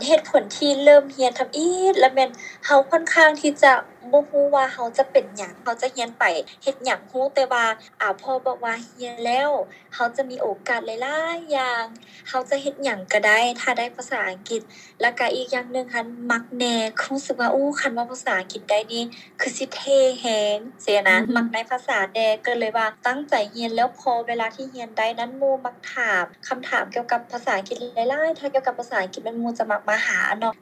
ເຫດຜົນທີ່ເລີ່ມຮຽນທຳອິດລະແມ່ນເຮົາຂ້ອນຂ້າງທີ່ຈະບໍ່ຮູ້ວ່າເຮົາຈະເປັນຫຍັງ ເຮົາຈະຮຽນໄປເຮັດຫຍັງ ຮູ້ແຕ່ວ່າອາພໍ່ບອກວ່າຮຽນແລ້ວເຮົາຈະມີໂອກາດຫຼາຍໆຢ່າງ ເຮົາຈະເຮັດຫຍັງກະໄດ້ ຖ້າໄດ້ພາສາອັງກິດ ລະກະອີກຢ່າງໜຶ່ງຫັ້ນມັກແນ່ ຮູ້ສຶກວ່າ ໂອ້ ຄັນເວົ້າພາສາອັງກິດໄດ້ນີ້ ຄືຊິເທ່ແຮງຊີ້ນະ ມັກໃນພາສາແດ່ ກະເລີຍວ່າຕັ້ງໃຈຮຽນ ແລ້ວພໍເວລາທີ່ຮຽນໄດ້ນັ້ນ ໝູ່ມັກຖາມຄຳຖາມກ່ຽວກັບພາສາອັງກິດຫຼາຍໆ ຖ້າກ່ຽວກັບພາສາອັງກິດແມ່ນໝູ່ຈະມັກມາຫາເນາະ